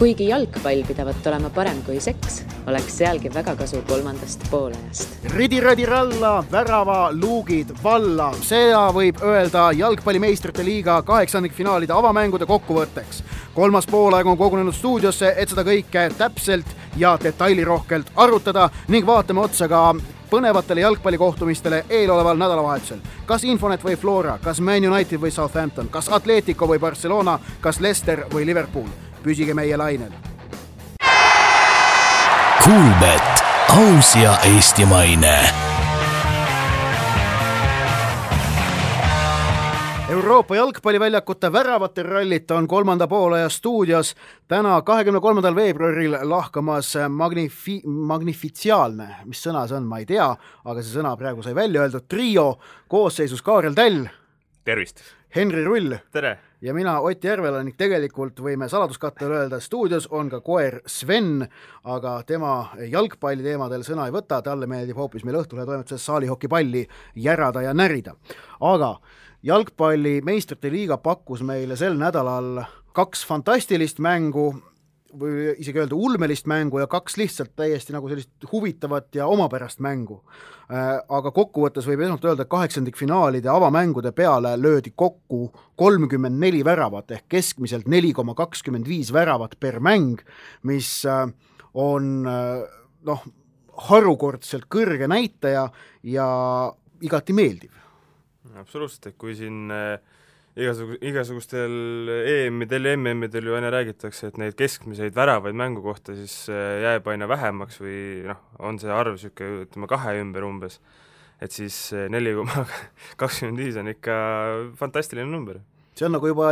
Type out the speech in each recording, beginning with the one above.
Kuigi jalgpall pidavat olema parem kui seks, oleks sealgi väga kasu kolmandast poolajast. Ridi-radi-ralla, värava, luugid, valla. Seda võib öelda jalgpallimeistrite liiga 8. finaalide avamängude kokkuvõtteks. Kolmas poolaeg on kogunenud stuudiosse, et seda kõike täpselt ja detailirohkelt arutada ning vaatame otsa ka põnevatele jalgpallikohtumistele eeloleval nädalavahetusel. Kas Infonet või Flora, kas Man United või Southampton, kas Atletico või Barcelona, kas Leicester või Liverpool. Püsige meie lainel. Kuulbet, aus ja eestimaine. Euroopa jalgpalliväljakute väravate rallit on kolmanda poolaja stuudios täna 23. veebruaril lahkamas magnifitsiaalne, mis sõna see on, ma ei tea, aga see sõna praegu sai välja öeldud, trio koosseisus Kaarel Täll. Tervist! Henri Rull. Tere! Ja mina Ott Järvela ning tegelikult võime saladuskattel öelda, stuudios on ka koer Sven, aga tema jalgpalli teemadel sõna ei võta, talle meeldib hoopis meil Õhtulehe toimetuses saalihokipalli järada ja närida. Aga jalgpalli meistrite liiga pakkus meile sel nädalal 2 fantastilist mängu, või isegi öelda ulmelist mängu ja 2 lihtsalt täiesti nagu sellist huvitavat ja omapärast mängu. Aga kokkuvõttes võib esmalt öelda, et 8. finaalide avamängude peale löödi kokku 34 väravat ehk keskmiselt 4,25 väravat per mäng, mis on harukordselt kõrge näitaja ja igati meeldiv. Absoluutselt, et kui siin igasugustel EM-idel ja MM-idel ju aina räägitakse, et neid keskmiseid väravaid mängu kohta siis jääb aina vähemaks või on see arv siuke, ütleme 2 ümber umbes, et siis 4,25 on ikka fantastiline number. See on nagu juba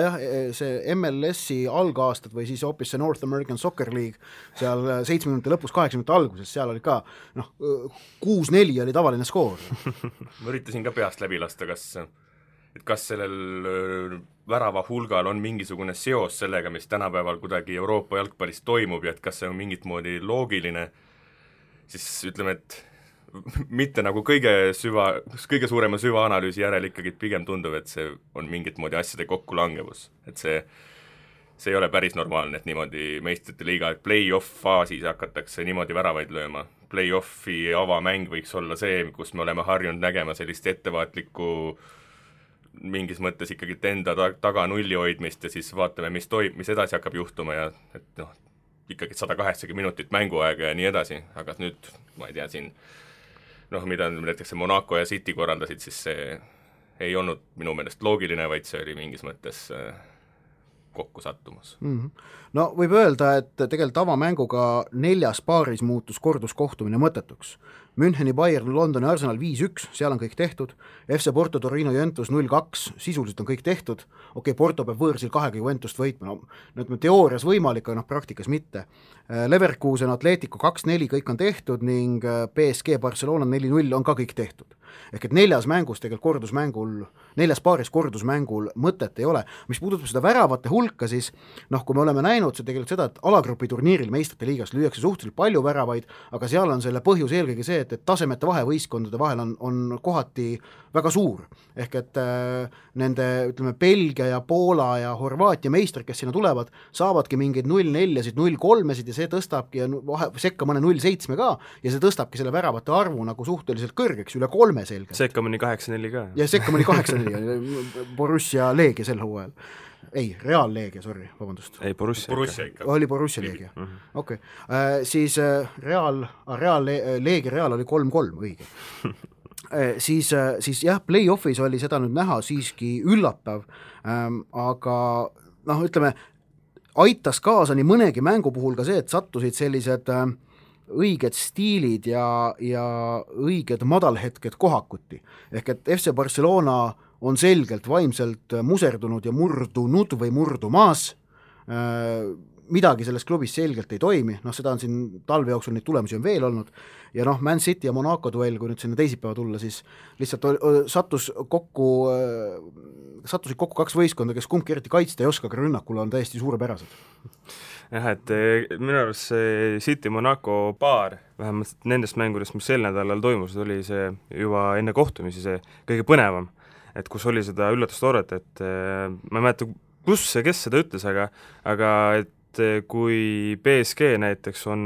see MLS-i algaastad või siis hoopis see North American Soccer League seal 70 lõpus, 80 alguses, seal oli ka 6-4 oli tavaline skoor. Ma üritasin ka peast läbi lasta, kas sellel värava hulgal on mingisugune seos sellega, mis tänapäeval kuidagi Euroopa jalgpallis toimub ja et kas see on mingit moodi loogiline, siis ütleme, et mitte nagu kõige suurema süvaanalüüsi järel ikkagi pigem tundub, et see on mingit moodi asjade kokkulangevus. Et see ei ole päris normaalne, et niimoodi meistrite liiga, et play-off faasis hakatakse niimoodi väravaid lööma. Play-offi avamäng võiks olla see, kus me oleme harjunud nägema sellist ettevaatlikku mingis mõttes ikkagi enda taga nulli hoidmist ja siis vaatame, mis edasi hakkab juhtuma ja et ikkagi 180 minutit mänguaega ja nii edasi, aga nüüd, ma ei tea, siin mida näiteks Monaco ja City korraldasid, siis see ei olnud minu meelest loogiline, vaid see oli mingis mõttes kokku sattumus. No võib öelda, et tegelikult avamänguga 4 paaris muutus korduskohtumine mõttetuks. Müncheni Bayern, Londoni Arsenal 5-1, seal on kõik tehtud, FC Porto, Torino, Juventus 0-2, sisuliselt on kõik tehtud, Porto peab võõrsil 2 Juventust võitma, teoorias võimalik, aga praktikas mitte. Leverkusen, Atletico 2-4, kõik on tehtud ning PSG Barcelona 4-0 on ka kõik tehtud. Ehk et 4 mängus tegelikult 4 paaris kordusmängul mõtet ei ole. Mis puudutab seda väravate hulka, siis kui me oleme näinud see tegelikult seda, et alagrupi turniiril meistrite liigas lüüakse suhteliselt palju väravaid, aga seal on selle põhjus eelkõige see, et tasemete vahe võistkondade vahel on kohati väga suur. Ehk et nende, ütleme, Belgia ja Poola ja Horvaatia meistrid, kes sinna tulevad, saavadki mingeid 0-4-sid, 0-3-sid ja see tõstabki sekka mõne 0-7 ka ja see tõstabki selle väravate arvu nagu suhteliselt kõrgeks, üle 3 selge. Sekka mõni 8-4 ka. Ja sekka mõni 8-4, Borussia Leegia sel hooajal. Ei, Real Leegia, sorry, vabandust. Ei, Borussia ikka. Oli Borussia Leegia. Okei. Siis Leegia Real oli 3-3, õige. Siis jah, play-offis oli seda nüüd näha siiski üllatav, aga ütleme, aitas kaasa nii mõnegi mängu puhul ka see, et sattusid sellised õiged stiilid ja õiged madalhetked kohakuti. Ehk et FC Barcelona on selgelt vaimselt muserdunud ja murdunud või murdumaas. Midagi selles klubis selgelt ei toimi, seda on siin talve jooksul neid tulemusi on veel olnud ja Man City ja Monaco duell, kui nüüd sinna teisipäeva tulla, siis lihtsalt satusid kokku 2 võistkonda, kes kumbki eriti kaitsta ei oska, aga rünnakul on täiesti suurepärased. Jah, et minu arust see City-Monaco paar, vähemalt nendest mängudest, mis sel nädalal toimus, oli see juba enne kohtumisi see kõige põnevam, et kus oli seda üllatustooret, et ma ei mäleta, kes seda ütles, aga et et kui BSG näiteks on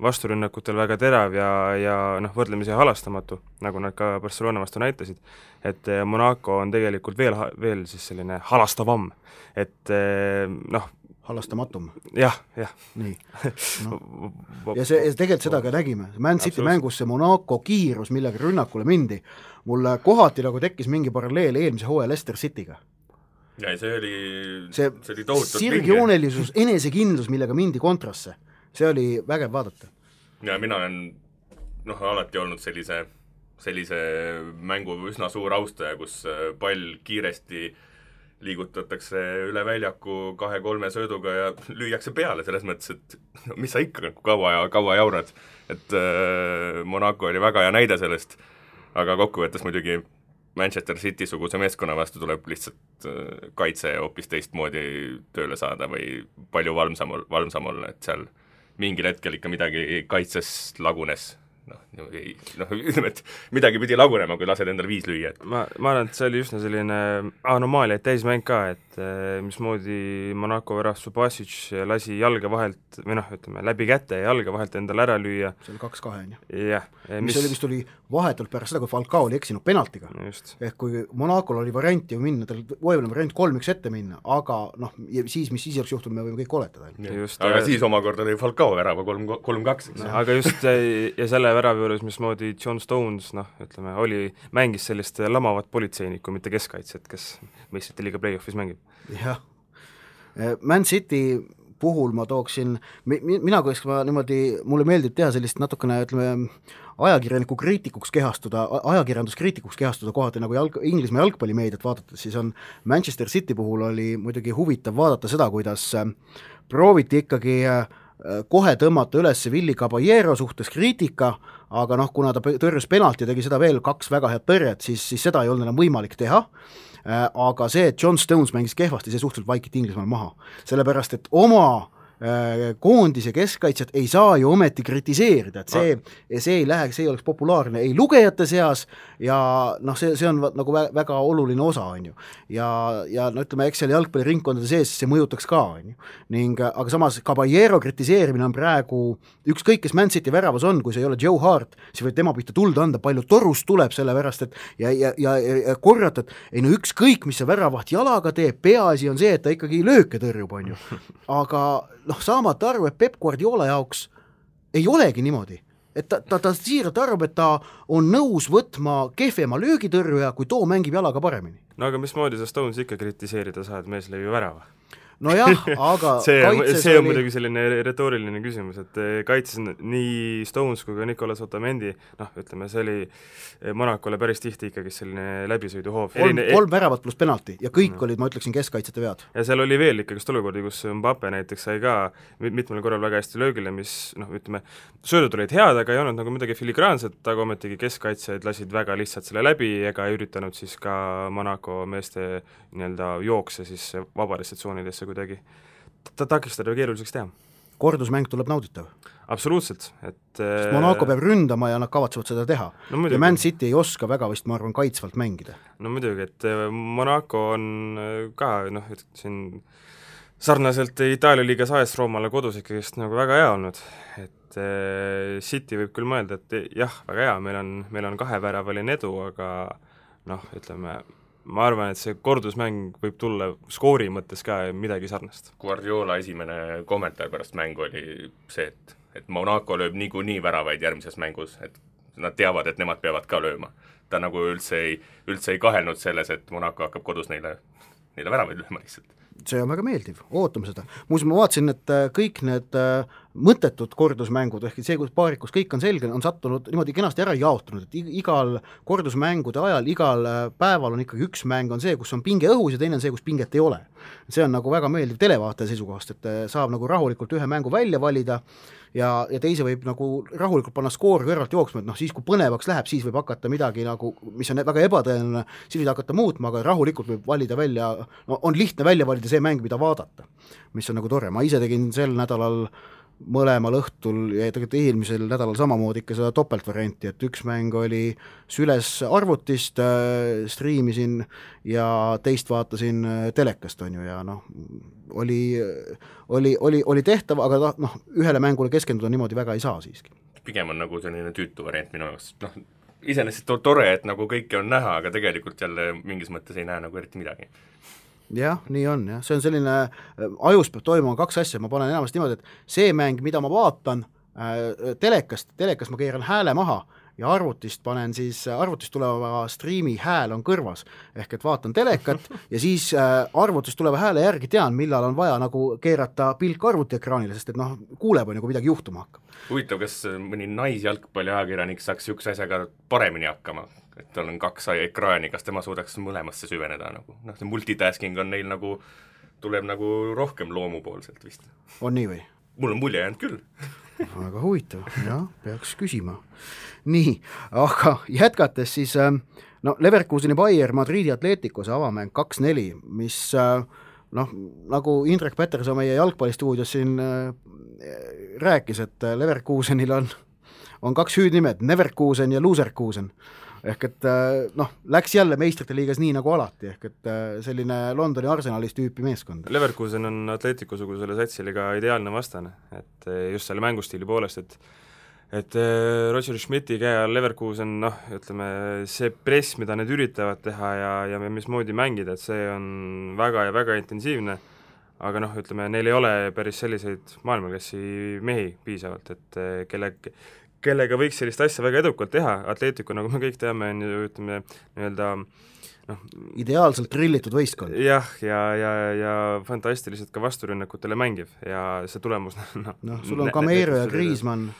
vasturünnakutel väga terav ja noh, võrdlemisi halastamatu, nagu nad ka Barcelona vastu näitasid, et Monaco on tegelikult veel siis selline halastavam, et noh, halastamatum. Jah. Nii. No. Ja tegelikult seda ka nägime. Man City mängus see Monaco kiirus, millega rünnakule mindi, mulle kohati nagu tekkis mingi paralleel eelmise hooaja Leicester Cityga. Ja see oli tohutult sirgjoonelisus, enesekindlus, millega mindi kontrasse. See oli vägev vaadata. Ja mina olen alati olnud sellise mängu üsna suur austaja, kus pall kiiresti liigutatakse üle väljaku 2-3 sööduga ja lüüakse peale selles mõttes, et mis sa ikka kaua jaurad. Et Monaco oli väga hea näide sellest, aga kokkuvõttes muidugi Manchester City suguse meeskonna vastu tuleb lihtsalt kaitse hoopis teistmoodi tööle saada või palju valmsam olla, et seal mingil hetkel ikka midagi kaitses lagunes. Ütleme, et midagi pidi lagunema, kui lased endale 5 lüüa. Ma arvan, et see oli üsna selline anomaalia täismäng ka, et mismoodi Monaco värav Subasic lasi jalga vahelt, või ütleme, läbi käte ja jalga vahelt endale ära lüüa. See oli 2-2, on ju? Jah. Mis oli vist oli vahetult pärast seda, kui Falcao oli eksinud penaltiga. Ehk kui Monacol oli variant ju minna, tal võivad variant 3-1 ette minna, aga siis, mis siis oleks juhtunud, me võime kõik oletada. Aga siis omakorda oli Falcao värava 3-2. Aga just, ja selle värav juures, mismoodi John Stones, mängis sellist lamavat politseinikku, mitte keskkaitset, kes meistrite liiga play-offis mängib. Jah. Man City puhul ma tooksin, mulle meeldib teha sellist natukene, ajakirjanduskriitikuks kehastuda kohati, nagu Inglismaa jalgpallimeediat vaadates, siis on Manchester City puhul oli muidugi huvitav vaadata seda, kuidas prooviti ikkagi kohe tõmmata üles Willy Caballero suhtes kriitika, aga kuna ta tõrjus penalti ja tegi seda veel 2 väga head tõrjet, siis seda ei olnud enam võimalik teha, aga see, et John Stones mängis kehvasti, see suhteliselt vaikiti Inglismaal maha, sellepärast et oma koondis ja keskkaitset ei saa ju ometi kritiseerida, et see ei lähe, see ei oleks populaarne ei lugejate seas ja see on nagu väga oluline osa, on ju. Ja ütleme, eks seal jalgpalliringkondade sees see mõjutaks ka, on ju. Aga samas Caballero kritiseerimine on praegu ükskõik, kes Man City väravas on, kui see ei ole Joe Hart, siis võib tema pihta tulda anda, palju torust tuleb selle pärast, et ja korrata, et ükskõik, mis see väravaht jalaga teeb, peaasi on see, et ta ikkagi lööke tõrjub, on ju. Aga saamata arvu, et Pep Guardiola jaoks ei olegi niimoodi, et ta siiralt arvab, et ta on nõus võtma kehvema löögitõrjuja, kui too mängib jalaga paremini. No aga mismoodi sa Stones ikka kritiseerida saad, mees lõi ju värava? No jah, aga see on muidugi selline retooriline küsimus, et kaitses nii Stones kui ka Nicolas Otamendi, ütleme, see oli Monacole päris tihti ikkagi selline läbisõiduhoov. 3 väravat pluss penalti ja kõik olid, ma ütleksin, keskkaitsete vead. Ja seal oli veel ikkagi olukordi, kus Mbappe näiteks sai ka mitmel korral väga hästi löögile, mis, ütleme, söödud olid head, aga ei olnud nagu midagi filigraanset, aga ometigi keskkaitsjaid lasid väga lihtsalt selle läbi ega ei üritanud siis ka Monaco meeste jookse siis vabadesse tsoonidesse kuidagi takistada keeruliseks teha. Kordusmäng tuleb nauditav. Absoluutselt. Sest Monaco peab ründama ja nad kavatsevad seda teha. Ja Man City ei oska väga vist, ma arvan, kaitsvalt mängida. No muidugi, et Monaco on ka, siin sarnaselt Itaalia liigas AS Roomale kodus ikkagist nagu väga hea olnud, et City võib küll mõelda, et jah, väga hea, meil on 2-väravaline edu, aga ütleme, ma arvan, et see kordusmäng võib tulla skoori mõttes ka midagi sarnast. Guardiola esimene kommentaar pärast mängu oli see, et Monaco lööb niikuinii väravaid järgmises mängus, et nad teavad, et nemad peavad ka lööma. Ta nagu üldse ei kahelnud selles, et Monaco hakkab kodus neile väravaid lööma lihtsalt. See on väga meeldiv, ootame seda. Muuseas, ma vaatasin, et kõik need mõttetud kordusmängud, ehk see, kus paarikus kõik on selge, on sattunud niimoodi kenasti ära jaotunud, et igal kordusmängude ajal, igal päeval on ikkagi üks mäng on see, kus on pinge õhus ja teine on see, kus pinget ei ole. See on nagu väga meeldiv televaataja seisukohast, et saab nagu rahulikult ühe mängu välja valida ja teise võib nagu rahulikult panna skoor kõrvalt jooksma, et siis kui põnevaks läheb, siis võib hakata midagi nagu, mis on väga ebatõenäoline, siis võib hakata muutma, aga rahulikult võib valida välja, on lihtne välja valida see mäng, mida vaadata, mis on nagu tore. Ma ise tegin sel nädalal mõlemal õhtul ja tegelikult eelmisel nädalal samamoodi ikka seda topeltvarianti, et üks mäng oli süles arvutist, striimisin ja teist vaatasin telekast, on ju, ja noh, oli tehtav, aga noh, ühele mängule keskenduda niimoodi väga ei saa siiski. Pigem on nagu selline tüütu variant minu jaoks, noh, iseenesest tore, et nagu kõike on näha, aga tegelikult jälle mingis mõttes ei näe nagu eriti midagi. Jah, nii on, jah, see on selline, ajus peab toimuma kaks asja, ma panen enamasti niimoodi, et see mäng, mida ma vaatan telekast ma keeran hääle maha ja arvutist panen siis, arvutist tuleva striimi hääl on kõrvas, ehk et vaatan telekat ja siis arvutist tuleva hääle järgi tean, millal on vaja nagu keerata pilk arvutiekraanile, sest et noh, kuuleb on ju, kui midagi juhtuma hakkab. Huvitav, kas mõni naisjalgpalli ajakirjanik saaks niisuguse asjaga paremini hakkama? Et tal on kaks ekraani, kas tema suudaks mõlemasse süveneda nagu, noh, see multitasking on neil nagu, tuleb nagu rohkem loomupoolselt vist. On nii või? Mul on mulje jäänud küll. Väga huvitav, jah, peaks küsima. Nii, aga jätkates siis, no Leverkuseni Bayer Madridi Atleticos avamäng 2-4, mis noh, nagu Indrek Peterson meie jalgpallistuudios siin rääkis, et Leverkusenil on kaks hüüdnimed, Neverkusen ja Loserkusen. Ehk et noh, läks jälle meistrite liigas nii nagu alati, ehk et selline Londoni Arsenalis tüüpi meeskond. Leverkusen on Atletico-sugusele satsile ka ideaalne vastane, et just selle mängustiili poolest, et Roger Schmidti käe all Leverkusen, noh, ütleme, see press, mida need üritavad teha ja mismoodi mängida, et see on väga ja väga intensiivne, aga noh, ütleme, neil ei ole päris selliseid maailmaklassi mehi piisavalt, et kellega võiks sellist asja väga edukalt teha, Atletico, nagu me kõik teame, on ju, ütleme, nii-öelda noh, ideaalselt trillitud võistkond. Jah, ja fantastiliselt ka vasturünnakutele mängiv ja see tulemus noh, sul on Cameiro ja Griezmann.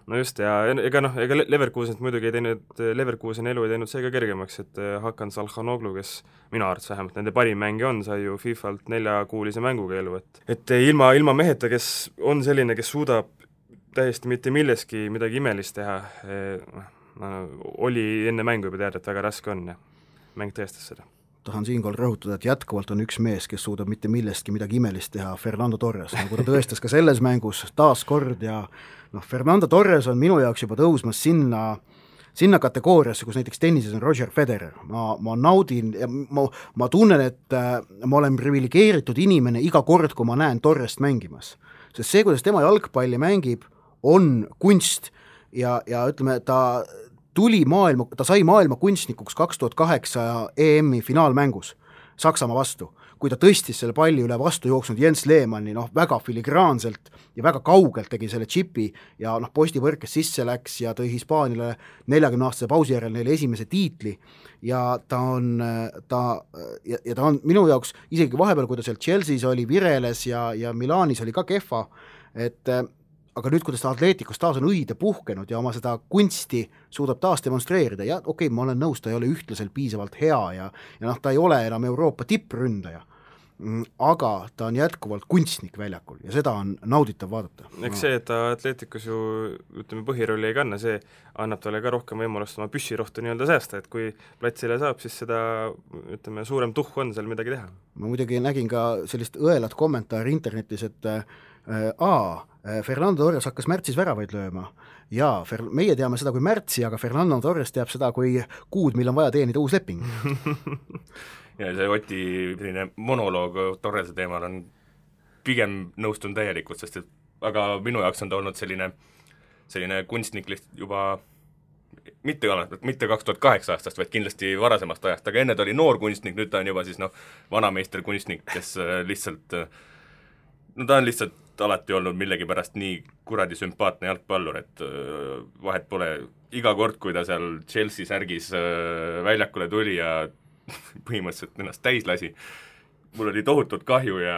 No just, ja ega Leverkusenit muidugi ei teinud, Leverkusen elu ei teinud see ka kergemaks, et Hakan Salhanoglu, kes minu arvates vähemalt nende parim mängi on, sai ju FIFA-lt 4-kuulise mänguga elu, et ilma meheta, kes on selline, kes suudab täiesti mitte milleski midagi imelist teha, oli enne mängu juba teada, et väga raske on ja mäng tõestas seda. Tahan siinkohal rõhutada, et jätkuvalt on üks mees, kes suudab mitte millestki midagi imelist teha, Fernando Torres, nagu ta tõestas ka selles mängus taas kord ja noh, Fernando Torres on minu jaoks juba tõusmas sinna kategooriasse, kus näiteks tennises on Roger Federer. Ma naudin ja ma tunnen, et ma olen privilegeeritud inimene iga kord, kui ma näen Torrest mängimas. Sest see, kuidas tema jalgpalli mängib, on kunst ja ütleme, ta sai maailma kunstnikuks 2008 EM-i finaalmängus Saksamaa vastu, kui ta tõstis selle palli üle vastu jooksnud Jens Lehmanni, noh, väga filigraanselt ja väga kaugelt tegi selle chipi ja noh, postivõrkes sisse läks ja tõi Hispaanile 40-aastase pausi järel neile esimese tiitli ja ta on minu jaoks isegi vahepeal, kui ta seal Chelsea's oli, vireles ja Milanis oli ka kehva, et aga nüüd, kuidas ta Atleticos taas on õide puhkenud ja oma seda kunsti suudab taas demonstreerida ja okei, ma olen nõus, ta ei ole ühtlaselt piisavalt hea ja noh, ta ei ole enam Euroopa tippründaja, aga ta on jätkuvalt kunstnik väljakul ja seda on nauditav vaadata. Eks see, et ta Atleticos ju, ütleme, põhirolli ei kanna, see annab talle ka rohkem võimalust oma püssirohtu nii-öelda säästa, et kui platsile saab, siis seda, ütleme, suurem tuhh on seal midagi teha. Ma muidugi nägin ka sellist õelat kommentaari internetis, et Fernando Torres hakkas märtsis väravaid lööma ja meie teame seda kui märtsi, aga Fernando Torres teab seda kui kuud, mil on vaja teenida uus leping. Ja see Oti monoloog Torrese teemal on pigem nõustun täielikult, sest et aga minu jaoks on ta olnud selline kunstnik juba mitte 2008 aastast, vaid kindlasti varasemast ajast, aga enne ta oli noor kunstnik, nüüd ta on juba siis vanameister kunstnik, kes lihtsalt ta on lihtsalt alati olnud millegipärast nii kuradi sümpaatne jalgpallur, et vahet pole iga kord, kui ta seal Chelsea särgis väljakule tuli ja põhimõtteliselt ennast täis lasi, mul oli tohutult kahju ja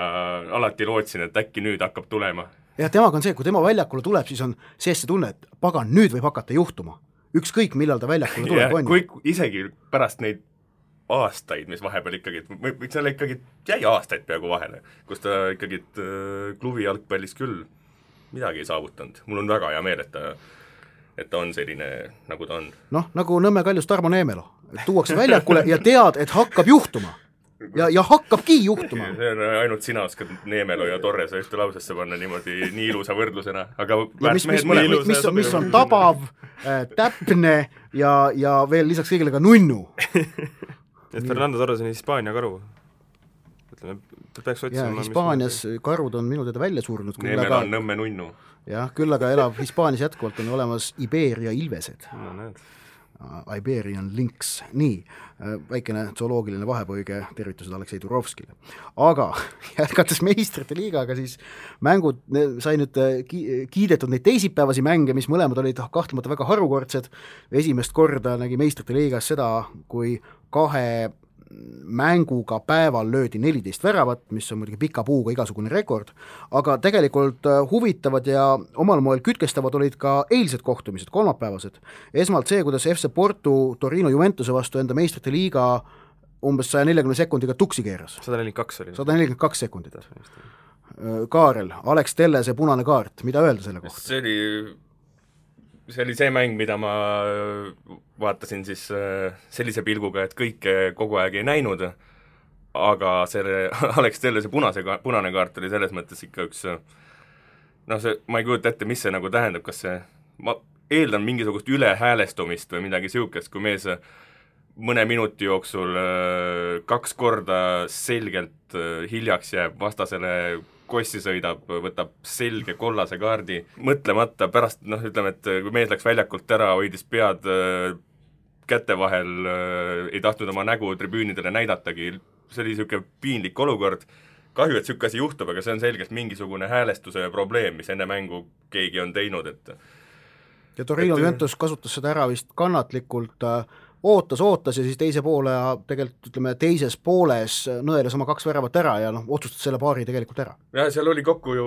alati lootsin, et äkki nüüd hakkab tulema. Ja temaga on see, kui tema väljakule tuleb, siis on sees see tunne, et pagan, nüüd võib hakata juhtuma. Ükskõik, millal ta väljakule tuleb, on ju. Isegi pärast neid aastaid, mis vahepeal ikkagi, seal ikkagi jäi aastaid peaaegu vahele, kus ta ikkagi klubi jalgpallis küll midagi ei saavutanud. Mul on väga hea meel, et ta on selline, nagu ta on. Noh, nagu Nõmme Kaljus Tarmo Neemelo. Tuuakse väljakule ja tead, et hakkab juhtuma. ja hakkabki juhtuma. See on ainult sina oskad Neemelo ja Torrese ühte lausesse panna niimoodi nii ilusa võrdlusena, aga mis on tabav, täpne ja veel lisaks kõigile ka nunnu. Et Fernando Torres on Hispaania karu. Ütleme, ta peaks otsima... Hispaanias karud on minu teada välja surnud. Neemelo on Nõmme nunnu. Jah, küll aga elab Hispaanias jätkuvalt on olemas Iberia ilvesed. No näed. Iberian Lynx, nii, väikene zooloogiline vahepõige, tervitused Aleksei Turovskile. Aga jätkates meistrite liigaga, siis mängud sai nüüd kiidetud neid teisipäevasi mänge, mis mõlemad olid kahtlemata väga harukordsed. Esimest korda nägi meistrite liigas seda, kui 2 mänguga päeval löödi 14 väravat, mis on muidugi pika puuga igasugune rekord, aga tegelikult huvitavad ja omal moel kütkestavad olid ka eilsed kohtumised, kolmapäevased. Esmalt see, kuidas FC Porto Torino Juventuse vastu enda meistrite liiga umbes 140 sekundiga tuksi keeras. 142 oli. 142 sekundit. Kaarel, Alex Tellese punane kaart, mida öelda selle kohta? See oli see mäng, mida ma vaatasin siis sellise pilguga, et kõike kogu aeg ei näinud, aga selle Alex Tellese punane kaart oli selles mõttes ikka üks ma ei kujuta ette, mis see nagu tähendab, kas see, ma eeldan mingisugust ülehäälestumist või midagi siukest, kui mees mõne minuti jooksul 2 korda selgelt hiljaks jääb, vastasele kossi sõidab, võtab selge kollase kaardi, mõtlemata pärast, ütleme, et kui mees läks väljakult ära, hoidis pead käte vahel, ei tahtnud oma nägu tribüünidele näidatagi, see oli niisugune piinlik olukord, kahju, et niisugune asi juhtub, aga see on selgelt mingisugune häälestuse probleem, mis enne mängu keegi on teinud, et ja Torino Juventus kasutas seda ära vist kannatlikult, ootas ja siis teise poole ja tegelikult ütleme teises pooles nõeles oma 2 väravat ära ja otsustas selle paari tegelikult ära. Ja seal oli kokku ju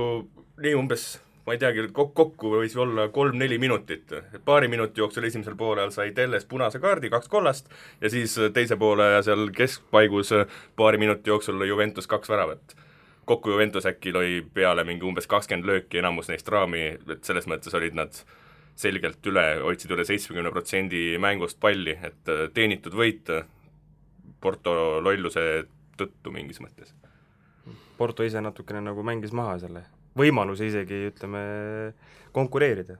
nii umbes, ma ei teagi, kokku võis olla 3-4 minutit. Paari minuti jooksul esimesel poolel sai Telles punase kaardi, 2 kollast ja siis teise poole ja seal keskpaigus paari minuti jooksul lõi Juventus 2 väravat. Kokku Juventus äkki lõi peale mingi umbes 20 lööki, enamus neist raami, et selles mõttes olid nad selgelt hoidsid üle 70% mängust palli, et teenitud võit Porto lolluse tõttu mingis mõttes. Porto ise natukene nagu mängis maha selle võimaluse isegi, ütleme, konkureerida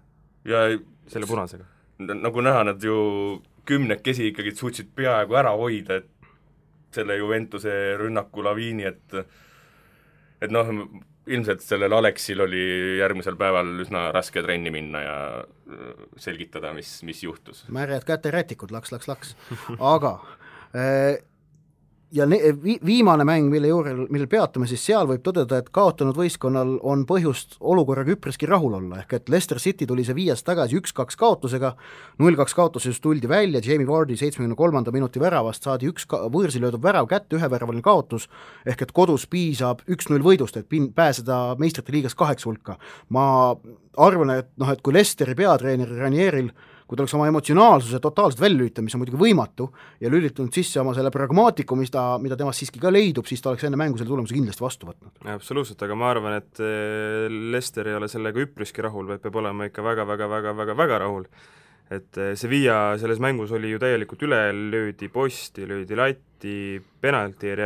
ja selle punasega. Nagu näha, nad ju 10 ikkagi suutsid peaaegu ära hoida, et selle Juventuse rünnaku laviini, et ilmselt sellel Aleksil oli järgmisel päeval üsna raske trenni minna ja selgitada, mis juhtus. Märjad käterätikud, laks. Aga ja viimane mäng, mille peatume, siis seal võib tõdeda, et kaotanud võistkonnal on põhjust olukorraga üpriski rahul olla, ehk et Leicester City tuli see 5 tagasi 1-2 kaotusega, 0-2 kaotuses tuldi välja, Jamie Vardy 73. minuti väravast saadi 1 võõrsi löödud värav kätte, 1 väravaline kaotus, ehk et kodus piisab 1-0 võidust, et pääseda meistrite liigas 8 hulka. Ma arvan, et kui Leicesteri peatreener Ranieril kui ta oleks oma emotsionaalsuse totaalselt välja lülitanud, mis on muidugi võimatu, ja lülitanud sisse oma selle pragmaatiku, mida temast siiski ka leidub, siis ta oleks enne mängu selle tulemuse kindlasti vastu võtnud. Absoluutselt, aga ma arvan, et Leicester ei ole sellega üpriski rahul, vaid peab olema ikka väga rahul. Et Sevilla selles mängus oli ju täielikult üle, löödi posti, löödi latti, penalti ei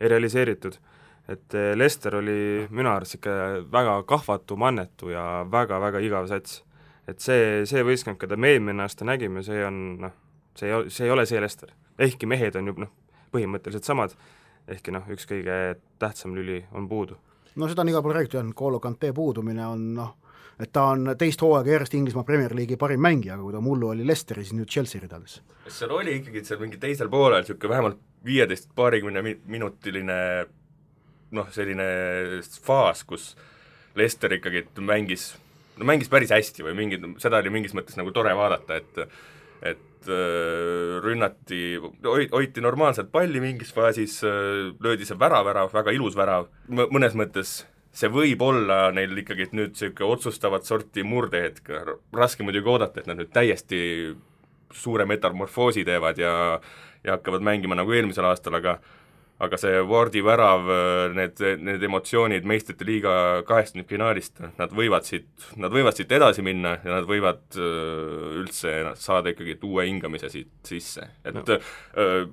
realiseeritud. Et Leicester oli minu arvates ikka väga kahvatu, mannetu ja väga igav sats. Et see võistkond, keda me eelmine aasta nägime, see on, see ei ole see Leicester. Ehkki mehed on ju põhimõtteliselt samad, ehkki üks kõige tähtsam lüli on puudu. No seda on iga pool räägitud, N'Golo Kanté puudumine on, et ta on teist hooaega järjest Inglismaa Premier League'i parim mängija, aga kui ta mullu oli Leicesteri, siis nüüd Chelsea ridades. Seal oli ikkagi seal mingi teisel poolel siuke vähemalt 15-20 minutiline selline faas, kus Leicester ikkagi mängis päris hästi või seda oli mingis mõttes nagu tore vaadata, et rünnati, hoiti normaalselt palli mingis faasis, löödi see värav, väga ilus värav, mõnes mõttes see võib olla neil ikkagi nüüd siuke otsustavat sorti murdehetk, raske muidugi oodata, et nad nüüd täiesti suure metamorfoosi teevad ja hakkavad mängima nagu eelmisel aastal, aga aga see Wardi värav, need emotsioonid meistrite liiga 8. finaalist, nad võivad siit edasi minna ja nad võivad üldse saada ikkagi uue hingamise siit sisse. Et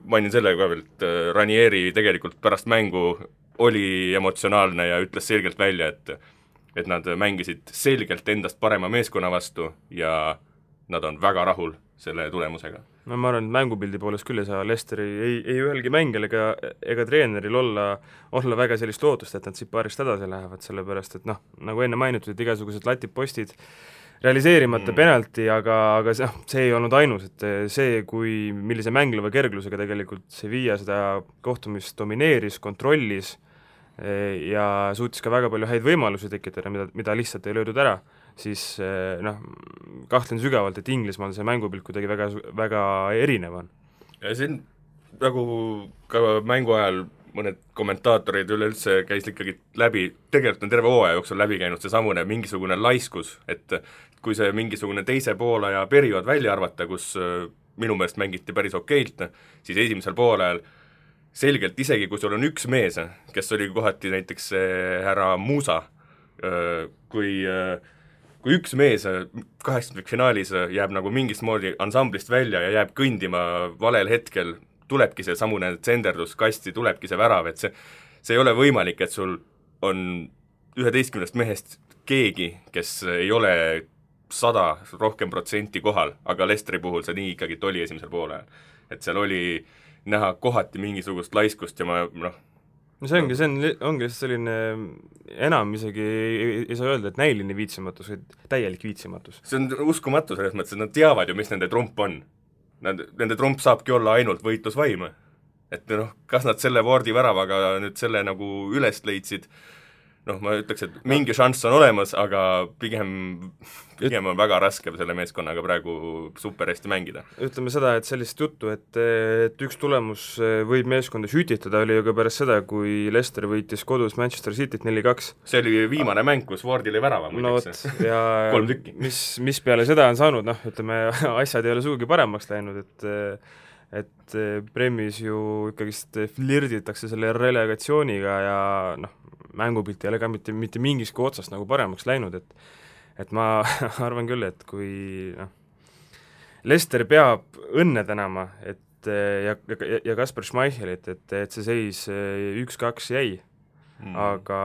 mainin selle ka veel, et Ranieri tegelikult pärast mängu oli emotsionaalne ja ütles selgelt välja, et nad mängisid selgelt endast parema meeskonna vastu ja nad on väga rahul selle tulemusega. No ma arvan, et mängupildi poolest küll ei saa Leicesteri ei ühelgi mängijal ega treeneril olla väga sellist lootust, et nad siit paarist edasi lähevad, sellepärast et nagu enne mainitud, et igasugused latipostid realiseerimata penalti, aga see ei olnud ainus, et see, millise mängleva kerglusega tegelikult Sevilla seda kohtumist domineeris, kontrollis ja suutis ka väga palju häid võimalusi tekitada, mida lihtsalt ei löödud ära, siis kahtlen sügavalt, et Inglismaal see mängupilt kuidagi väga, väga erinev on. Ja siin nagu ka mängu ajal mõned kommentaatorid üleüldse käis ikkagi läbi, tegelikult on terve hooaja jooksul läbi käinud seesamune mingisugune laiskus, et kui see mingisugune teise poolaja periood välja arvata, kus minu meelest mängiti päris okeilt, siis esimesel poolajal selgelt isegi, kui sul on üks mees, kes oli kohati näiteks härra Muusa, kui üks mees 8. finaalis jääb nagu mingist moodi ansamblist välja ja jääb kõndima valel hetkel, tulebki see samune tsenderdus kasti, tulebki see värav, et see ei ole võimalik, et sul on 11 mehest keegi, kes ei ole 100% rohkem kohal, aga Leicesteri puhul see nii ikkagi oli esimesel poole. Et seal oli näha kohati mingisugust laiskust ja see ongi selline enam isegi ei saa öelda, et näiline viitsimatus, vaid täielik viitsimatus. See on uskumatu selles mõttes, et nad teavad ju, mis nende trump on. Nende trump saabki olla ainult võitlusvaim. Et kas nad selle Wardi väravaga nüüd selle nagu üles leidsid, ma ütleks, et mingi šanss on olemas, aga pigem on väga raske selle meeskonnaga praegu super hästi mängida. Ütleme seda, et sellist juttu, et üks tulemus võib meeskonda sütitada, oli ju ka pärast seda, kui Leicester võitis kodus Manchester Cityt 4-2. See oli viimane mäng, kus Wardi oli värava muideks. Ja 3 tükki. Mis peale seda on saanud, ütleme, asjad ei ole sugugi paremaks läinud, et Premis ju ikkagist flirditakse selle relegatsiooniga ja mängupilt ei ole ka mitte mingiski otsast nagu paremaks läinud, et ma arvan küll, et kui Leicester peab õnne tänama, ja Kasper Schmeichelit, et see seis 1-2 jäi, aga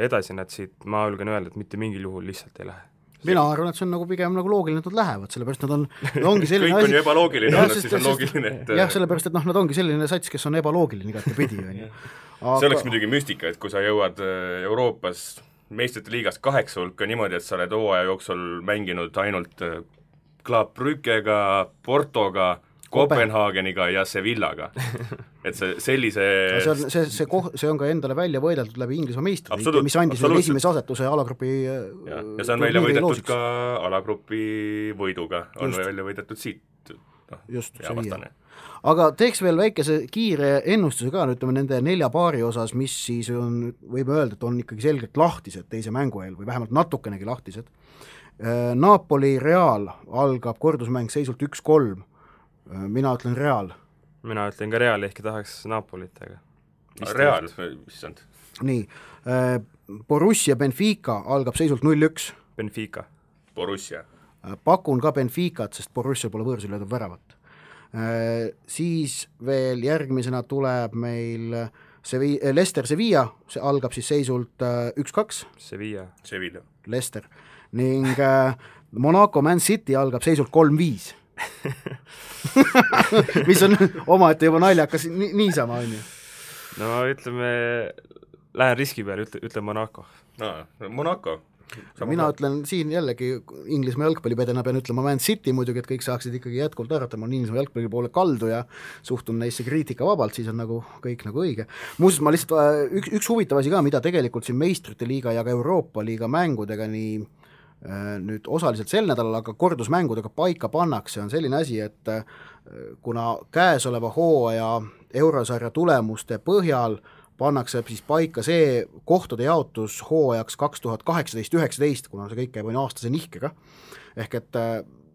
edasi nad siit, ma julgen öelda, et mitte mingil juhul lihtsalt ei lähe. Mina arvan, et see on nagu pigem nagu loogiline, et nad lähevad, sellepärast nad ongi selline kõik on ju ebaloogiline, siis on loogiline, et jah, sellepärast, et nad ongi selline sats, kes on ebaloogiline igati pidi. See oleks muidugi müstika, et kui sa jõuad Euroopas meistrite liigas 8 hulka niimoodi, et sa oled hooaja jooksul mänginud ainult Club Brüggega, Portoga, Kopenhaageniga ja Sevillaga. Et sellise see on ka endale välja võideldud läbi Inglismaa meistriliiga, mis andis esimese asetuse alagrupi ja see on välja võidetud ka alagrupi võiduga, on välja võidetud siit hea vastane. Aga teeks veel väikese kiire ennustuse ka, ütleme nende 4 paari osas, mis siis on, võib öelda, et on ikkagi selgelt lahtised teise mängu eel või vähemalt natukenegi lahtised. Napoli Real algab kordusmäng seisult 1-3. Mina ütlen Real. Mina ütlen ka Real, ehkki tahaks Napolit, aga Real, issand. Nii, Borussia Benfica algab seisult 0-1. Benfica. Borussia. Pakun ka Benficat, sest Borussia pole võõrsil löödud väravat. Siis veel järgmisena tuleb meil Leicester Sevilla, see algab siis seisult 1-2. Sevilla. Leicester. Ning Monaco Man City algab seisult 3-5. mis on omaette juba naljakas niisama on ju. No ütleme, lähen riski peale, ütlen Monaco. Monaco. Mina ütlen siin jällegi Inglismaa jalgpallipedena pean ütlema Man City muidugi, et kõik saaksid ikkagi jätkuvalt arvata, ma olen Inglismaa jalgpalli poole kaldu ja suhtun neisse kriitika vabalt, siis on nagu kõik nagu õige. Muuseas, ma lihtsalt üks huvitav asi ka, mida tegelikult siin meistrite liiga ja ka Euroopa liiga mängudega nii nüüd osaliselt sel nädalal, aga kordusmängudega paika pannakse, on selline asi, et kuna käesoleva hooaja eurosarja tulemuste põhjal pannakse siis paika see kohtade jaotus hooajaks 2018-19, kuna see kõik käib aastase nihkega, ehk et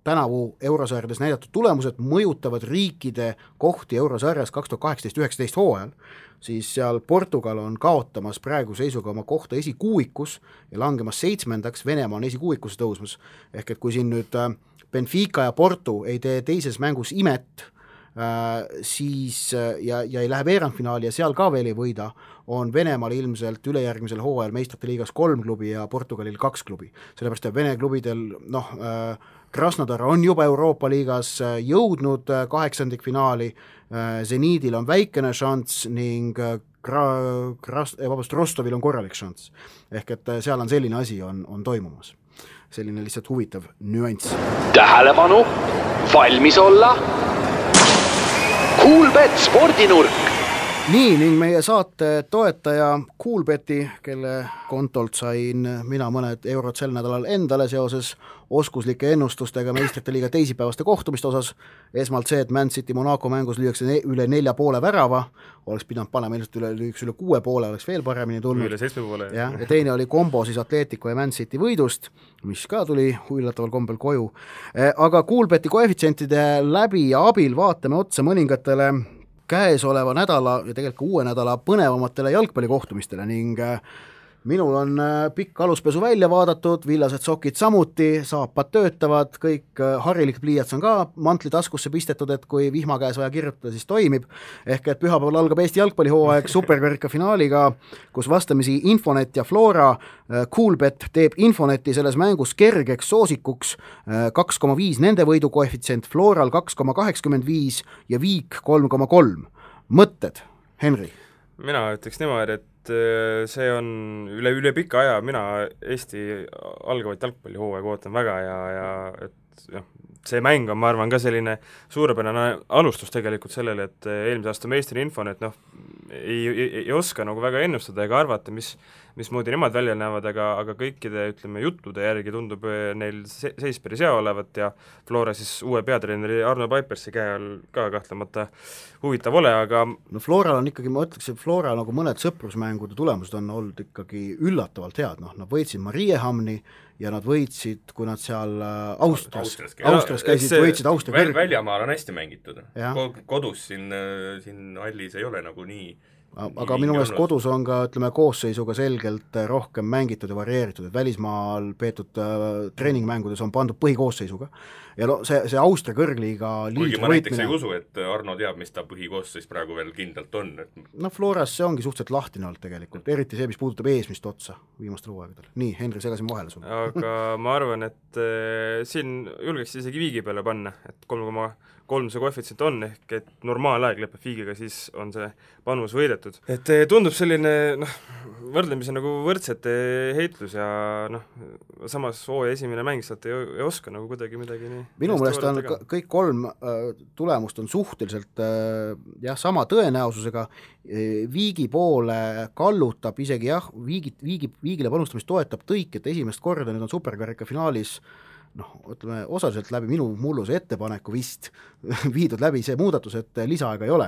tänavu eurosarjades näidatud tulemused mõjutavad riikide kohti eurosarjas 2018-19 hooajal, siis seal Portugal on kaotamas praegu seisuga oma kohta esikuuikus ja langemas 7. Venemaa on esikuuikus tõusmas. Ehk et kui siin nüüd Benfica ja Porto ei tee teises mängus imet, siis ja ei lähe veerandfinaali ja seal ka veel ei võida, on Venemaal ilmselt ülejärgmisel hooajal meistrite liigas 3 klubi ja Portugalil 2 klubi. Sellepärast, et Vene klubidel, Krasnodar on juba Euroopa liigas jõudnud 8. finaali, Zeniidil on väikene šanss ning Rostovil on korralik šanss. Ehk et seal on selline asi on toimumas. Selline lihtsalt huvitav nüanss. Tähelepanu, valmis olla. Coolbet spordinurk. Nii, ning meie saate toetaja Coolbeti, kelle kontolt sain mina mõned eurod sel nädalal endale seoses oskuslike ennustustega meistrite liiga teisipäevaste kohtumiste osas. Esmalt see, et Man City Monaco mängus lüüakse üle 4,5 värava, oleks pidanud panema ilmselt üle 6,5, oleks veel paremini tulnud. Üle 7,5. Ja teine oli kombo siis Atletico ja Man City võidust, mis ka tuli üllataval kombel koju. Aga Coolbeti koefitsientide läbi ja abil vaatame otsa mõningatele käesoleva nädala ja tegelikult uue nädala põnevamatele jalgpallikohtumistele ning minul on pikk aluspesu välja vaadatud, villased sokid samuti, saapad töötavad, kõik harilik pliiats on ka mantli taskusse pistetud, et kui vihma käes vaja kirjutada, siis toimib. Ehk et pühapäeval algab Eesti jalgpallihooaeg superkarika finaaliga, kus vastamisi Infonet ja Flora. Coolbet teeb Infoneti selles mängus kergeks soosikuks 2,5 nende võidu koefitsient, Floral 2,85 ja Viik 3,3. Mõtted, Henri? Mina ütleks niimoodi, et see on üle pika aja, mina Eesti algavat jalgpallihooaega ootan väga ja et see mäng on, ma arvan, ka selline suurepärane alustus tegelikult sellele, et eelmise aasta meistri Infonet ei oska nagu väga ennustada ega arvata, mismoodi nemad välja näevad, aga kõikide, ütleme, juttude järgi tundub neil seis päris hea olevat ja Flora siis uue peatreeneri Arno Paipersi käe all ka kahtlemata huvitav ole, aga Floral on ikkagi, ma ütleks, et Flora nagu mõned sõprusmängude tulemused on olnud ikkagi üllatavalt head, nad võitsid Mariehamni ja nad võitsid, kui nad seal Austrias käisid, võitsid Austria väljamaal on hästi mängitud. Kodus siin hallis ei ole nagu nii. Aga minu meelest kodus on ka, ütleme, koosseisuga selgelt rohkem mängitud ja varieeritud, et välismaal peetud treeningmängudes on pandud põhikoosseisuga. Ja see Austria kõrgliiga kuigi ma näiteks ei usu, et Arno teab, mis ta põhikoosseis praegu veel kindlalt on. Floras see ongi suhteliselt lahtine olnud tegelikult, eriti see, mis puudutab eesmist otsa viimastel hooaegadel. Nii, Henri, segasin vahele sulle. Aga ma arvan, et siin julgeks isegi Viigi peale panna, et 3,3 see koefitsient on, ehk et normaalaeg lõpeb Viigiga, siis on see panus võidetud. Et tundub selline võrdlemisi nagu võrdsete heitlus ja samas hooaja esimene mäng sealt ei oska nagu kuidagi midagi nii. Minu meelest on kõik 3 tulemust on suhteliselt sama tõenäosusega. Viigi poole kallutab isegi Viigile panustamist toetab tõik, et esimest korda nüüd on superkarika finaalis ütleme, osaliselt läbi minu mulluse ettepaneku vist viidud läbi see muudatus, et lisaaega ei ole,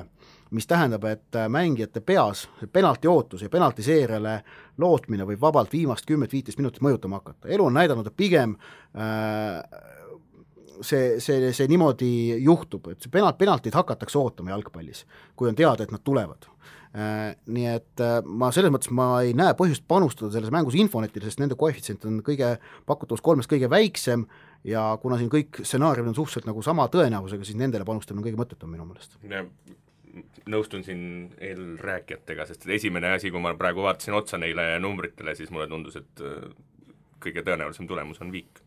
mis tähendab, et mängijate peas penalti ootus ja penalti seeriale lootmine võib vabalt viimast 10-15 minutit mõjutama hakata. Elu on näidanud, et pigem see niimoodi juhtub, et see penaltid hakatakse ootama jalgpallis, kui on teada, et nad tulevad. Nii et ma selles mõttes ei näe põhjust panustada selles mängus Infonetile, sest nende koefitsient on pakutavus 3 kõige väiksem ja kuna siin kõik stsenaariumid on suhteliselt nagu sama tõenäosusega, siis nendele panustamine on kõige mõttetum minu meelest. Nõustun siin eelrääkijatega, sest esimene asi, kui ma praegu vaatasin otsa neile numbritele, siis mulle tundus, et kõige tõenäolisem tulemus on Viik.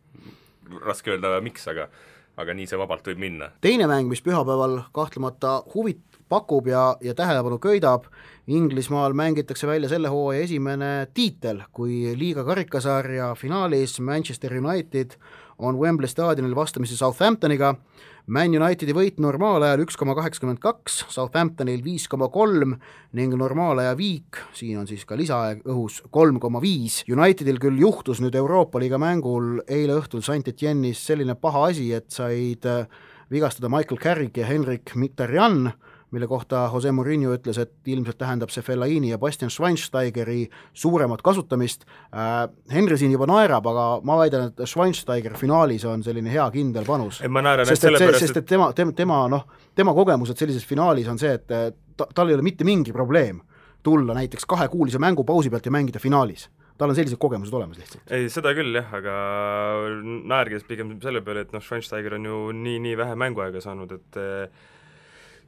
Raske öelda miks, aga nii see vabalt võib minna. Teine mäng, mis pühapäeval kahtlemata huvit pakub ja tähelepanu köidab, Inglismaal mängitakse välja selle hooaja esimene tiitel, kui liiga karikasarja finaalis Manchester United on Wembley staadionil vastamisi Southamptoniga. Man Unitedi võit normaalajal 1,82, Southamptonil 5,3 ning normaalaja Viik, siin on siis ka lisaaeg õhus 3,5. Unitedil küll juhtus nüüd Euroopa liiga mängul eile õhtul Saint-Etienne'is selline paha asi, et said vigastada Michael Carrick ja Henrik Mkhitaryan, mille kohta Jose Mourinho ütles, et ilmselt tähendab see Fellaini ja Bastian Schweinsteigeri suuremat kasutamist. Henry siin juba naerab, aga ma väidan, et Schweinsteiger finaalis on selline hea kindel panus. Sest et tema kogemused sellises finaalis on see, et tal ei ole mitte mingi probleem tulla näiteks 2-kuulise mängupausi pealt ja mängida finaalis. Tal on sellised kogemused olemas lihtsalt. Ei, seda küll jah, aga naerges pigem selle peale, et Schweinsteiger on ju nii vähe mänguaega saanud, et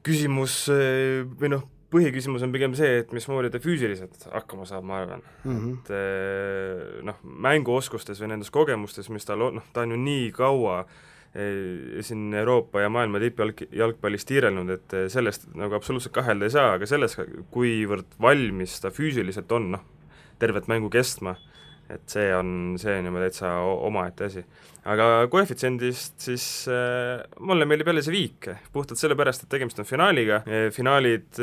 küsimus või põhiküsimus on pigem see, et mismoodi ta füüsiliselt hakkama saab, ma arvan. Et mänguoskustes või nendes kogemustes, mis ta on ju nii kaua siin Euroopa ja maailma tippjalgpallis tiirelnud, et sellest nagu absoluutselt kahelda ei saa, aga selles, kuivõrd valmis ta füüsiliselt on, tervet mängu kestma, et see on juba täitsa omaette asi. Aga koefitsiendist siis mulle meeldib jälle see viik, puhtalt sellepärast, et tegemist on finaaliga. Finaalid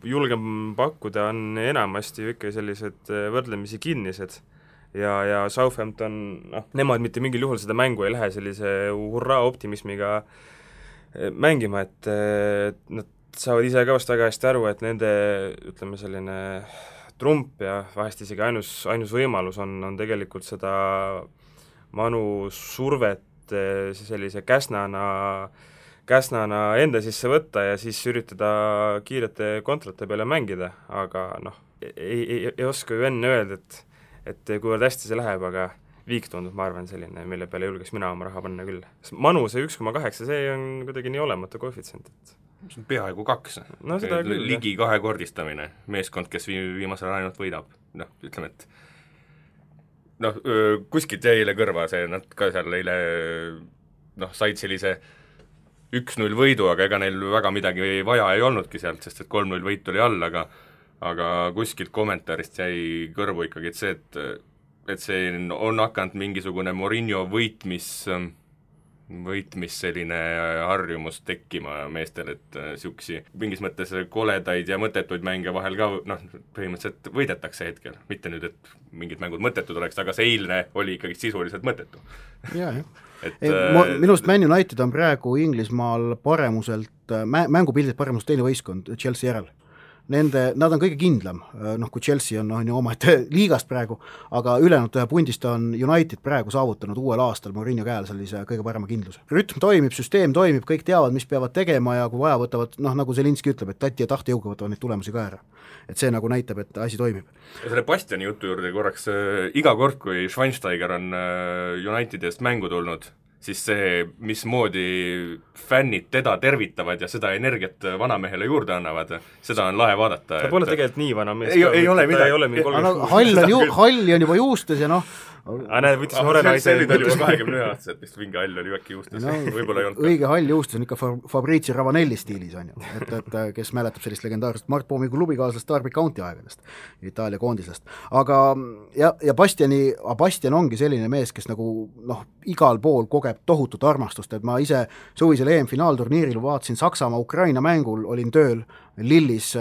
julgem pakkuda on enamasti ikka sellised võrdlemisi kinnised ja Southampton, nemad mitte mingil juhul seda mängu ei lähe sellise hurraa optimismiga mängima, et nad saavad ise ka vast väga hästi aru, et nende, ütleme, selline trump ja vahest isegi ainus võimalus on tegelikult seda Manu survet sellise käsnana enda sisse võtta ja siis üritada kiirete kontrate peale mängida, aga ei oska ju enne öelda, et kuivõrd hästi see läheb, aga viik tundub, ma arvan, selline, mille peale julgeks mina oma raha panna küll. Manu see 1,8, see on kuidagi nii olematu koefitsient, et see on peaaegu 2. Ligi 2-kordistamine, meeskond, kes viimasel ainult võidab. Ütleme, et kuskilt jäi eile kõrva see, nad ka seal eile said sellise 1-0 võidu, aga ega neil väga midagi vaja ei olnudki sealt, sest et 3-0 võit oli all, aga kuskilt kommentaarist jäi kõrvu ikkagi, et see on hakanud mingisugune Mourinho võitmis selline harjumus tekkima meestel, et siuksi mingis mõttes koledaid ja mõttetuid mänge vahel ka põhimõtteliselt võidetakse hetkel. Mitte nüüd, et mingid mängud mõttetud oleks, aga see eilne oli ikkagi sisuliselt mõttetu. Jah. Minust Man United on praegu Inglismaal paremuselt, mängupildilt paremuselt teine võistkond Chelsea järel. Nad on kõige kindlam, kui Chelsea on oma liigast praegu, aga ülejäänud pundist on United praegu saavutanud uuel aastal Mourinho käel sellise kõige parema kindluse. Rütm toimib, süsteem toimib, kõik teavad, mis peavad tegema ja kui vaja võtavad, nagu Zelinski ütleb, et tati ja tahtejõuga võtavad neid tulemusi ka ära. Et see nagu näitab, et asi toimib. Ja selle Bastiani jutu juurde korraks, iga kord, kui Schweinsteiger on Unitedist mängu tulnud, siis see, mismoodi fännid teda tervitavad ja seda energiat vanamehele juurde annavad, seda on lahe vaadata. Ta pole tegelikult nii vana mees. Ei ole midagi. Hall on juba juustes ja võttis noore naise. See oli juba 21-aastaselt, vist mingi hall oli äkki juustes. Võib-olla ei olnud. Õige hall juustes on ikka Fabrizio Ravanelli stiilis, on ju. Et kes mäletab sellist legendaarset Mart Poomi klubikaaslast Derby County aegadest, Itaalia koondisest. Aga ja Bastian ongi selline mees, kes nagu igal pool kogeb tohutut armastust, et ma ise suvisel EM-finaalturniiril vaatasin Saksamaa-Ukraina mängul, olin tööl Lillis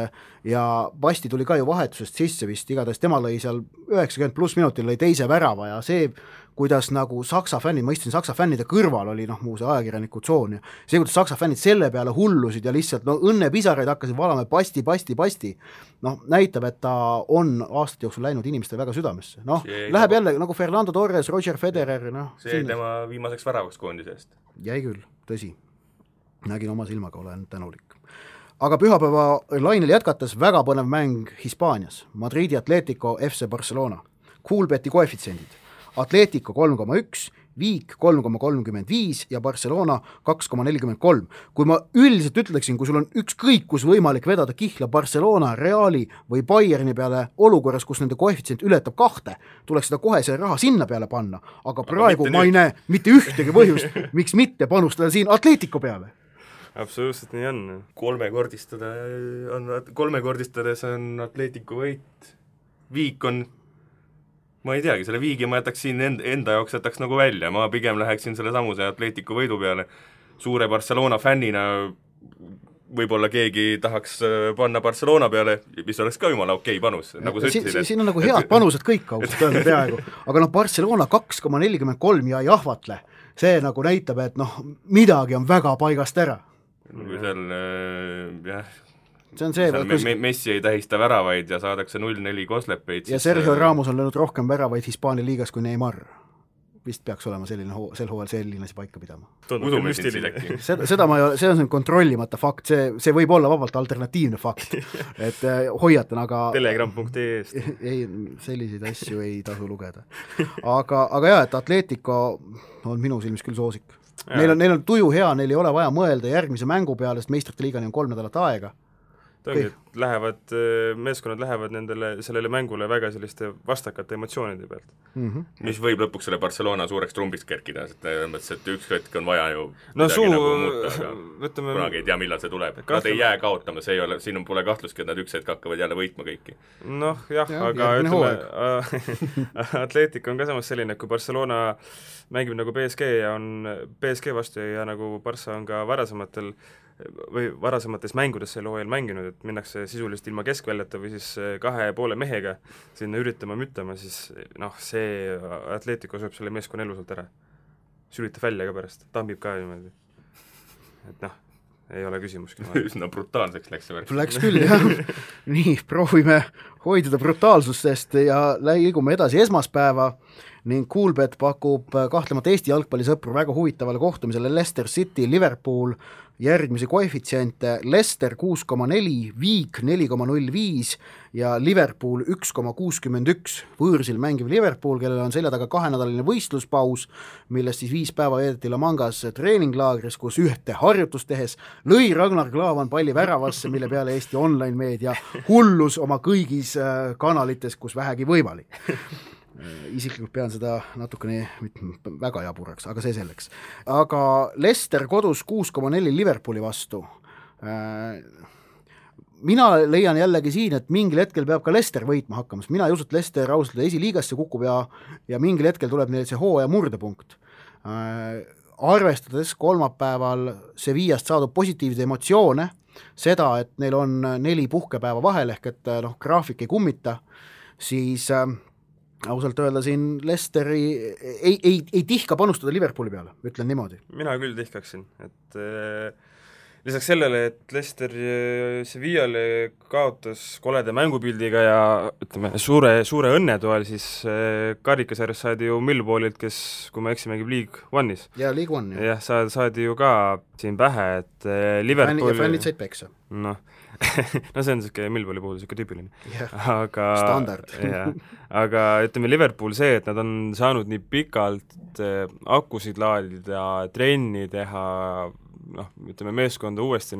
ja Basti tuli ka ju vahetusest sisse vist, igatahes tema lõi seal 90+ minutil lõi teise värava ja see, kuidas nagu Saksa fännid, ma istusin Saksa fännide kõrval, oli muu see ajakirjaniku tsoon ja see, kuidas Saksa fännid selle peale hullusid ja lihtsalt õnnepisaraid hakkasid valama Basti, näitab, et ta on aastate jooksul läinud inimestele väga südamesse. Läheb jälle nagu Fernando Torres, Roger Federer. See tema viimaseks väravaks koondise eest. Jäi küll, tõsi. Nägin oma silmaga, olen tänulik. Aga pühapäeva lainel jätkates väga põnev mäng Hispaanias. Madridi Atletico FC Barcelona. Coolbeti koefitsiendid. Atletico 3,1, Viik 3,35 ja Barcelona 2,43. Kui ma üldiselt ütleksin, kui sul on ükskõik kus võimalik vedada kihla Barcelona, Reali või Bayerni peale olukorras, kus nende koefitsient ületab 2, tuleks seda kohe see raha sinna peale panna, aga praegu ma ei näe mitte ühtegi põhjust, miks mitte panustada siin Atletico peale. Absoluutselt nii on. Kolmekordistades on Atletico võit. Viik on, ma ei teagi, selle viigi ma jätaks siin enda jaoks jätaks nagu välja, ma pigem läheksin selle samuse Atletico võidu peale. Suure Barcelona fännina võib-olla keegi tahaks panna Barcelona peale, mis oleks ka jumala okei panus, nagu sa ütlesid. Siin on nagu head panused kõik ausalt öelda peaaegu, aga Barcelona 2,43 ja jahvatle, see nagu näitab, et midagi on väga paigast ära. Kui seal see on see, Messi ei tähista väravaid ja saadakse 0-4 koslepeid. Ja Sergio Ramos on löönud rohkem väravaid Hispaania liigas kui Neymar. Vist peaks olema sel hooajal selline asi paika pidama. Udume sind äkki. Seda ma ei ole, see on kontrollimata fakt, see võib olla vabalt alternatiivne fakt, et hoiatan, aga telegram.ee-st ei, selliseid asju ei tasu lugeda. Aga jah, et Atletico on minu silmis küll soosik. Neil on tuju hea, neil ei ole vaja mõelda järgmise mängu peale, sest meistrite liigani on 3 nädalat aega. Meeskonnad lähevad sellele mängule väga selliste vastakate emotsioonide pealt. Mis võib lõpuks selle Barcelona suureks trumbiks kerkida, et üks hetk on vaja ju kunagi ei tea, millal see tuleb. Nad ei jää kaotama, siin pole kahtlustki, et nad üks hetk hakkavad jälle võitma kõiki. Noh, jah, aga ütleme, Atletico on ka samas selline, kui Barcelona mängib nagu PSG ja on PSG vastu ja nagu Barca on ka varasemates mängudes selle hooajal mänginud, et minnakse sisuliselt ilma keskväljata või siis 2,5 mehega sinna müttama, siis see Atletico sööb selle meeskonna elusalt ära. Sülitab välja ka pärast, tambib ka niimoodi. Et ei ole küsimuski. Üsna brutaalseks läks see värk. Läks küll, jah. Nii, proovime hoiduda brutaalsustest ja liigume edasi esmaspäeva ning Coolbet pakub kahtlemata Eesti jalgpallisõpru väga huvitavale kohtumisele Leicester City, Liverpool, järgmisi koefitsiente Leicester 6,4, Viik 4,05 ja Liverpool 1,61. Võõrsil mängiv Liverpool, kellel on selja taga 2-nädalaline võistluspaus, millest siis 5 päeva veedeti La Mangas treeninglaagris, kus ühte harjutust tehes lõi Ragnar Klavan palli väravasse, mille peale Eesti online-meedia hullus oma kõigis kanalites, kus vähegi võimalik. Isiklikult pean seda natukene väga jaburaks, aga see selleks. Aga Leicester kodus 6,4 Liverpooli vastu. Mina leian jällegi siin, et mingil hetkel peab ka Leicester võitma hakkamas. Mina ei usu, et Leicester ausalt esiliigasse kukub ja mingil hetkel tuleb neil see hooaja murdepunkt. Arvestades kolmapäeval Sevillast saadud positiivseid emotsioone, seda, et neil on 4 puhkepäeva vahel ehk et graafik ei kummita, siis ausalt öelda siin Leicesteri ei tihka panustada Liverpooli peale, ütlen niimoodi. Mina küll tihkaksin, et lisaks sellele, et Leicester Sevillale kaotas kolede mängupildiga ja ütleme, suure õnnetoel, siis karikasarjas saadi ju Millwallilt, kes, kui ma eksi, mängib League One'is. Ja League One. Jah, saadi ju ka siin pähe, et Liverpool... Ja fännid said peksa. No see on niisugune Millwalli puhul niisugune tüüpiline. Aga standard. Aga ütleme Liverpool see, et nad on saanud nii pikalt akusid laadida, trenni teha, ütleme meeskonda uuesti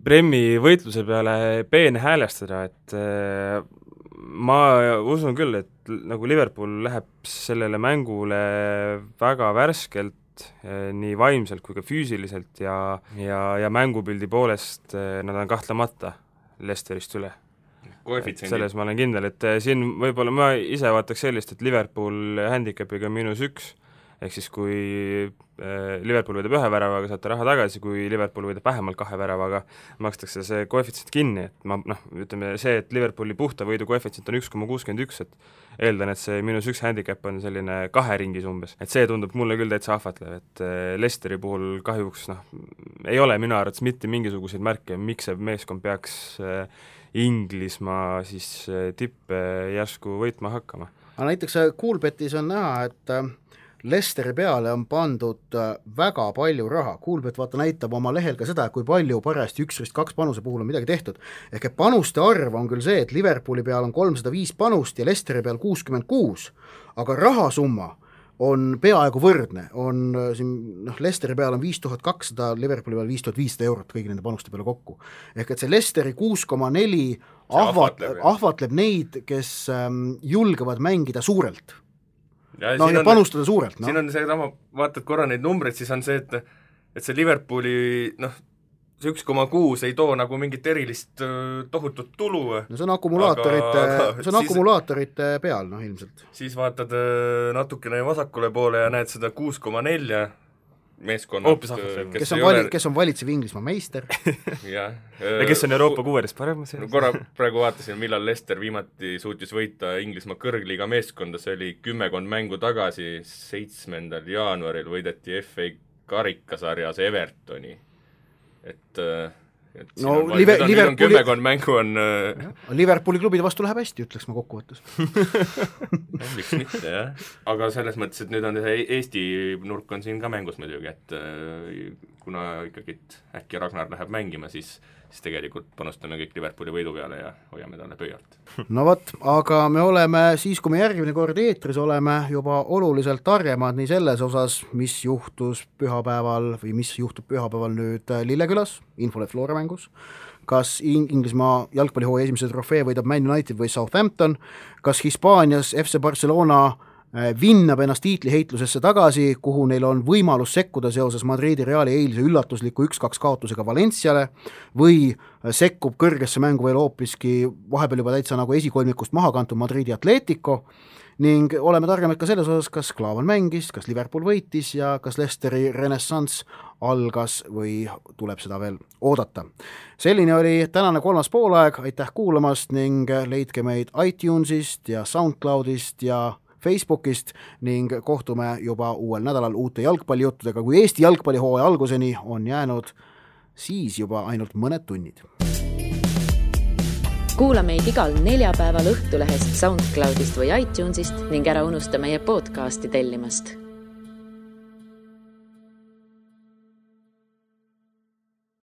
Premi võitluse peale peenhäälestada, et ma usun küll, et nagu Liverpool läheb sellele mängule väga värskelt, nii vaimselt kui ka füüsiliselt ja mängupildi poolest nad on kahtlemata Leicesterist üle. Selles ma olen kindel, et siin võib-olla ma ise vaataks sellist, et Liverpool handicapiga -1, ehk siis kui Liverpool võidab 1 väravaga, saate raha tagasi, kui Liverpool võidab vähemalt 2 väravaga, makstakse see koefitsient kinni, et ütleme see, et Liverpooli puhta võidu koefitsient on 1,61, et eeldan, et see -1 handicap on selline 2 ringis umbes, et see tundub mulle küll täitsa ahvatlev, et Leicesteri puhul kahjuks ei ole minu arvates mitte mingisuguseid märke, miks see meeskond peaks Inglismaa siis tippe järsku võitma hakkama. Aga näiteks Coolbetis on näha, et Leicesteri peale on pandud väga palju raha. Coolbet näitab oma lehel ka seda, kui palju parajasti 1-2 panuse puhul on midagi tehtud. Ehk et panuste arv on küll see, et Liverpooli peal on 305 panust ja Leicesteri peal 66, aga rahasumma on peaaegu võrdne. Leicesteri peal on 5200, Liverpooli peal 5500 eurot kõigi nende panuste peale kokku. Ehk et see Leicesteri 6,4 ahvatleb neid, kes julgevad mängida suurelt. Ja panustada suurelt. Siin on see, vaatad korra neid numbreid, siis on see, et see Liverpooli, see 1,6 ei too nagu mingit erilist tohutut tulu. No see on akumulaatorite peal, ilmselt. Siis vaatad natukene vasakule poole ja näed seda 6,4 meeskonnad, kes on valitsev Inglismaa meister. Ja kes on Euroopa 6. parem? Korra praegu vaatasin, millal Leicester viimati suutis võita Inglismaa kõrgliiga meeskonda, see oli 10 mängu tagasi, 7. jaanuaril võideti FA karikasarjas Evertoni. Et kümmekond mängu on Liverpooli klubide vastu läheb hästi, ütleks ma kokkuvõttes. Miks mitte, jah. Aga selles mõttes, et nüüd on Eesti nurk on siin ka mängus muidugi, et kuna ikkagi äkki Ragnar läheb mängima, siis tegelikult panustame kõik Liverpooli võidu peale ja hoiame talle pöialt. No võt, aga me oleme siis, kui me järgmine kord eetris oleme, juba oluliselt targemad nii selles osas, mis juhtus pühapäeval või mis juhtub pühapäeval nüüd Lillekülas, Infolet Flora mängus, kas Inglismaa jalgpallihooaja esimese trofee võidab Man United või Southampton, kas Hispaanias FC Barcelona vinnab ennast tiitliheitlusesse tagasi, kuhu neil on võimalus sekkuda seoses Madridi Reali eilse üllatusliku 1-2 kaotusega Valenciale või sekkub kõrgesse mängu veel hoopiski vahepeal juba täitsa nagu esikolmikust maha kantud Madridi Atletico ning oleme targemad ka selles osas, kas Klaavan mängis, kas Liverpool võitis ja kas Leicesteri renessanss algas või tuleb seda veel oodata. Selline oli tänane 3. poolaeg, aitäh kuulamast ning leidke meid iTunesist ja SoundCloudist ja Facebookist ning kohtume juba uuel nädalal uute jalgpallijuttudega, kui Eesti jalgpallihooaja alguseni on jäänud siis juba ainult mõned tunnid. Kuula meid igal neljapäeval Õhtulehest, SoundCloudist või iTunesist ning ära unusta meie podcasti tellimast.